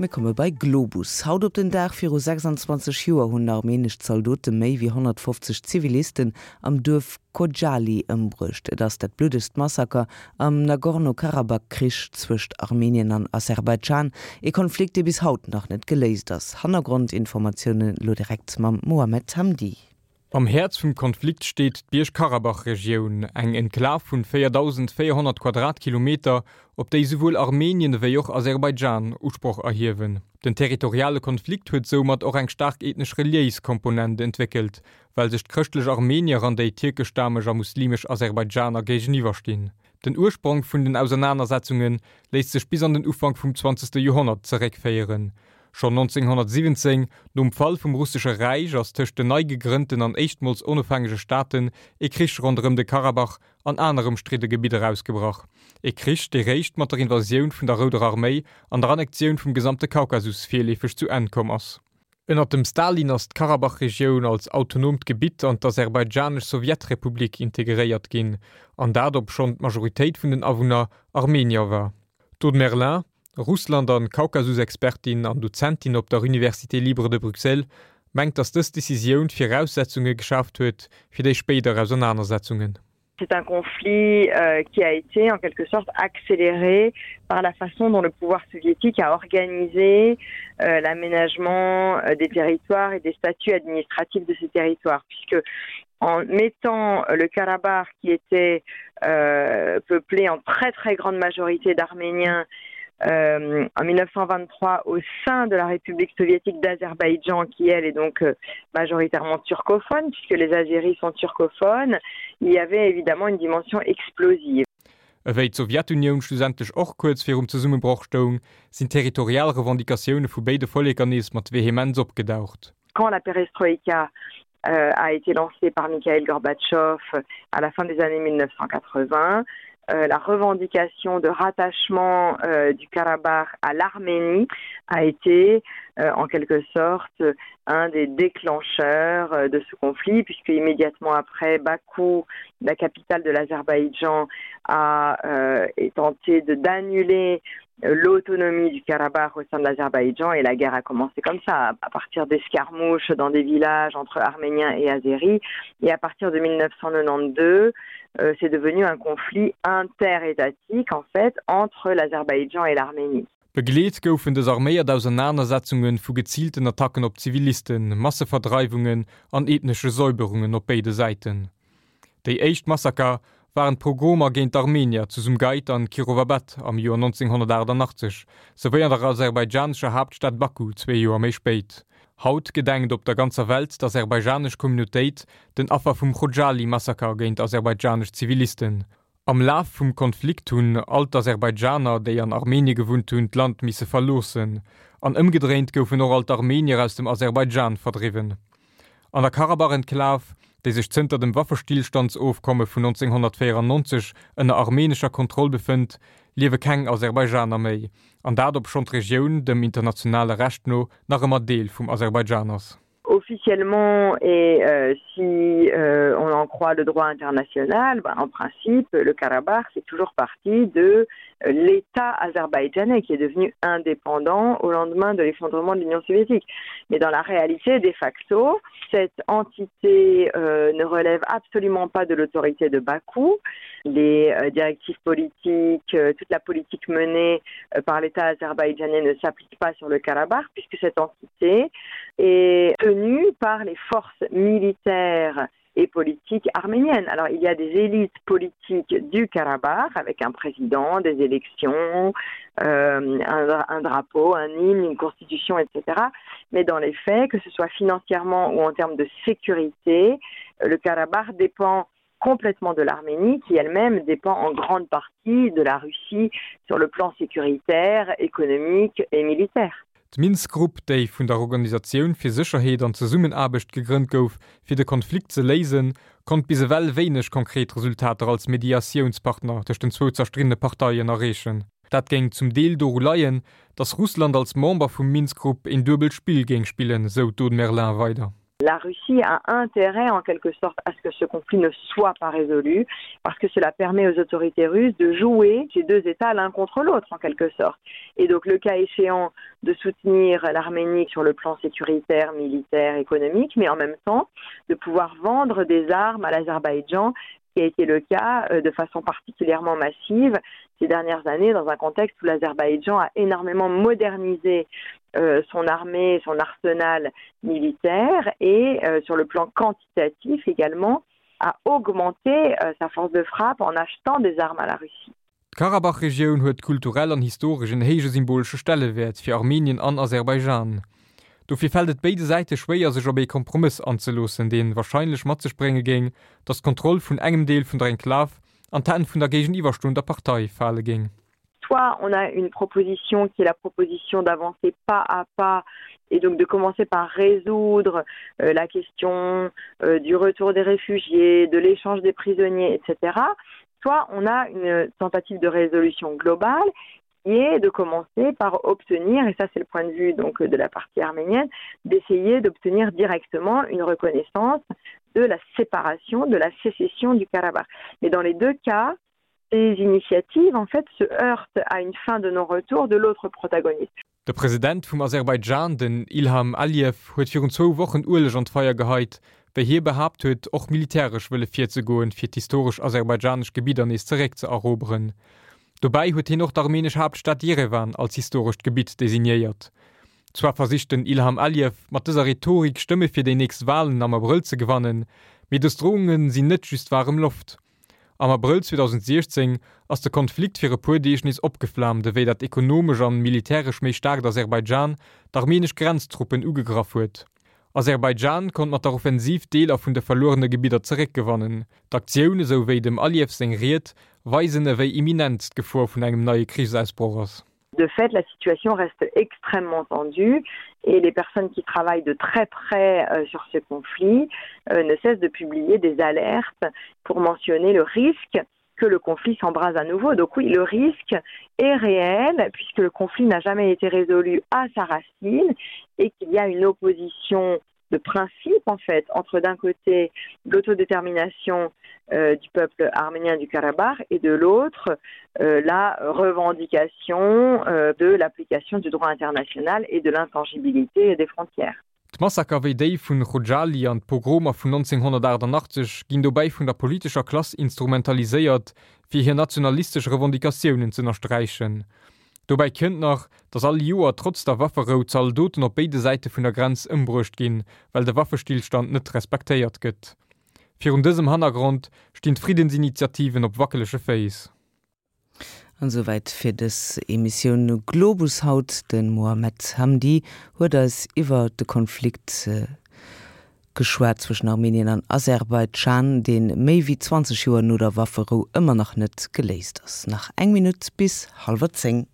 Mir komme bei Globus. Haut op den Dag viru 26 Joer hunn armenesch Zaldote méi wéi 150 Zivilisten am Duerf Khojaly ëmbruecht. Et ass dat bluddegst Massaker am Nagorno-Karabakh-Krich zwëscht Armenien an Aserbaidschan, ee Konflikt, dee bis haut nach net geléist ass. Hannergrondinformatiounen elo direkt mam Mohamed Hamdi. Am Häerz vum Konflikt steet d'Bierg-Karabach-Regioun, eng Enklav vun 4.400 Quadratkilometer, op déi souwuel Armenien ewéi och Aserbaidschan Usproch erhiewen. Den territoriale Konflikt huet soumat och eng staark ethnesch-reliéis Komponent entwéckelt, well sech d'chrëschtlech Armenier an déi tierkeschstameg a muslimesch Aserbaidschaner géigeniwwerstinn. Den Ursprong vun den Ausernanersetzunge léisst sech bis an den Ufank vum zwanzegste Joerhonnert zeréckféieren. Schonn 1917, nom Fall vum Russesche Räich, ass tëscht den nei gegrënnten an éischtmols onofhängege Staaten ee Krich ronderëm de Karabach an aner ëmstridde Gebidder ausgebrach. Ee Krich, dee réischt mat der Invasioun vun der Rouder Arméi an der Annektioun vum gesamte Kaukasus virleefeg zu Enn komm ass. Ënner dem Stalin ass d'Karabach-Regioun als autonoomt Gebitt an d'Aserbaidschanesch Sowjetrepublik integréiert ginn, an dat obschonn d'Majoritéit vun den Awunner Armenier war. D'Aude Merlin, Russland an Kaukasus-Expertin an Dozentin op der Université libre de Bruxelles, mengt, datt dës Decisioun d'Viraussetzunge geschaaft huet fir déi spéider Ausernanersetzungen. C'est un conflit euh, qui a été en quelque sorte accéléré par la façon dont le pouvoir soviétique a organisé euh, l'aménagement euh, des territoires et des statuts administratifs de ces territoires puisque en mettant le Karabakh qui était euh, peuplé en très très grande majorité d'Arméniens euh, en 1923 au sein de la République soviétique d'Azerbaïdjan qui elle est donc euh, majoritairement turcophone puisque les Azéris sont turcophones, il y avait évidemment une dimension explosive. Ewéi d'Sowjetunioun schlussendlech och kuerz virum Zesummebroch stoung, sinn territorial Revendicatioune vu béide Volleker nees mat Vehemenz opgedaucht. Quand la Perestroïka euh, a été lancée par Mikhail Gorbatchev à la fin des années 1980, euh, la revendication de rattachement euh, du Karabakh à l'Arménie a été euh, en quelque sorte un des déclencheurs euh, de ce conflit puisque immédiatement après Bakou, la capitale de l'Azerbaïdjan a euh, tenté d'annuler euh, l'autonomie du Karabakh au sein de l'Azerbaïdjan et la guerre a commencé comme ça à partir d'escarmouches dans des villages entre Arméniens et Azéris et à partir de 1992 euh, c'est devenu un conflit interétatique en fait entre l'Azerbaïdjan et l'Arménie. Begleet goufen dës arméiert Ausernanersetzunge vu geziilten Attacken op Zivilisten, Masseverdreiwungen an ethnesche Säuberungen op béide Säiten. Déi éischt Massaker waren d'Pogromer géint d'Armenier zu Sumgait an Kirovabad am Joer 1988, souwéi an der aserbaidschanescher Haaptstad Baku zwee Joer méi spéit. Haut gedenkt op der ganzer Welt d'aserbaidschanesch Communautéit den Affer vum Chodjali-Massaker géint aserbaidschanesch Zivilisten. Am Laf vum Konflikt hunn all d'Aserbaidschaner, déi an Armenie gewunnt hunn, d'Land misse verloossen. An ëmgedréint goufen och all d'Armenier aus dem Aserbaidschan verdriwwen. An der Karabach-Enklav, déi sech zënter dem Waffestillstandsofkomme vun 1994 ënner armenescher Kontroll befënnt, liewe keng Aserbaidschaner méi, an dat obschonn d'Regioun dem internationale Recht no nach ëmmer Deel vum Aserbaidschan ass. Officiellement et euh, si euh, on en croit le droit international, ben, en principe le Karabakh c'est toujours partie de euh, l'État azerbaïdjanais qui est devenu indépendant au lendemain de l'effondrement de l'Union soviétique. Mais dans la réalité de facto, cette entité euh, ne relève absolument pas de l'autorité de Bakou. Les euh, directives politiques, euh, toute la politique menée euh, par l'État azerbaïdjanais ne s'applique pas sur le Karabakh puisque cette entité est tenue par les forces militaires et politique arménienne. Alors il y a des élites politiques du Karabakh avec un président, des élections, euh, un, un drapeau, un hymne, une constitution, etc. Mais dans les faits, que ce soit financièrement ou en termes de sécurité, le Karabakh dépend complètement de l'Arménie qui elle-même dépend en grande partie de la Russie sur le plan sécuritaire, économique et militaire. D'Minsk-Grupp, déi vun der Organisatioun fir Sécherheet an Zesummenaarbecht gegrënnt gouf, fir de Konflikt ze léisen, konnt bis ewell wéineg konkret Resultater als Mediatiounspartner tëscht den zwou zerstriddene Parteien erreechen. Dat géing zum Deel doru leien, datt Russland als Member vum Minsk-Grupp een duebelt Spill géing spillen, sou d'Aude Merlin weider. La Russie a intérêt en quelque sorte à ce que ce conflit ne soit pas résolu parce que cela permet aux autorités russes de jouer ces deux États l'un contre l'autre en quelque sorte. Et donc le cas échéant de soutenir l'Arménie sur le plan sécuritaire, militaire, économique, mais en même temps de pouvoir vendre des armes à l'Azerbaïdjan qui a été le cas euh, de façon particulièrement massive ces dernières années dans un contexte où l'Azerbaïdjan a énormément modernisé euh, son armée, son arsenal militaire et euh, sur le plan quantitatif également a augmenté euh, sa force de frappe en achetant des armes à la Russie. D'Karabach-Regioun huet kulturell an historesch en héije symbolesche Stellewäert fir Armenien an Aserbaidschan. Dofir fält et béide Säite schwéier, sech op ee Kompromëss anzeloossen, dee warscheinlech mat sech brénge géing, datt d'Kontroll vun engem Deel vun der Enklav an d'Hänn vun der géigeniwwerstoender Partei fale géing. Soit on a une proposition qui est la proposition d'avancer pas à pas et donc de commencer par résoudre euh, la question euh, du retour des réfugiés, de l'échange des prisonniers, etc soit on a une tentative de résolution globale qui est de commencer par obtenir, et ça c'est le point de vue donc de la partie arménienne, d'essayer d'obtenir directement une reconnaissance de la séparation, de la sécession du Karabakh. Mais dans les deux cas, ces initiatives en fait se heurtent à une fin de non-retour de l'autre protagoniste. De President vum Aserbaidschan, den Ilham Aliyev, huet virun zwou Wochen Ueleg an d'Feier geheit, wéi hie behaapt huet, och militäresch wëlle virzegoen, fir d'historesch aserbaidschanesch Gebidder nees zeréckzeeroberen. Dobäi huet hien och d'armenesch Haaptstad Jerewan als historescht Gebitt designéiert. Zwar versicht den Ilham Aliyev mat dëser Rhetorik Stëmme fir déi nächst Walen am Abrëll ze gewannen, mee dës Drohunge sinn net just waarem Loft. Am Abrëll 2016 ass de Konflikt fir e puer Deeg nees opgeflaamt, ewéi dat ekonomesch an militäresch méi staarkt Aserbaidschan d'armeenesch Grenztruppen ugegraff huet. Aserbaidschan konnt mat der Offensiv Deeler vun de verluerene Gebidder zeréckgewannen. D'Aktioun, esou wéi dem Aliyev seng Ried, weisen ewéi imminent d'Gefor vun engem neie Krichsausbroch ass. De fait, la situation reste extrêmement tendue et les personnes qui travaillent de très près euh, sur ce conflit euh, ne cessent de publier des alertes pour mentionner le risque que le conflit s'embrase à nouveau. Donc oui, le risque est réel puisque le conflit n'a jamais été résolu à sa racine et qu'il y a une opposition de principe en fait entre d'un côté l'autodétermination euh, du peuple arménien du Karabakh et de l'autre euh, la revendication euh, de l'application du droit international et de l'intangibilité des frontières. D'Massaker wéi déi vun Chodjali an d'Pogromer vun 1988 ginn dobäi vun der politescher Klass instrumentaliséiert, fir hir nationalistesch Revendicatiounen z'ënnersträichen. Dobäi kënnt nach, datt all Joer trotz der Wafferou Zaldoten op béide Säite vun der Grenz ëmbruecht ginn, well de Waffestillstand net respektéiert gëtt. Virun dësem Hannergrond stinn d'Friddensinitiativen op wackelege Féiss. An esouwäit fir dës Emissioun Globus haut. De Mohamed Hamdi huet eis iwwer de Konflikt geschwat zwëschen Armenien an Aserbaidschan, dee méi wéi 20 Joer no der Wafferou ëmmer nach net geléist ass. Nach eng Minutt bis hallwer 10.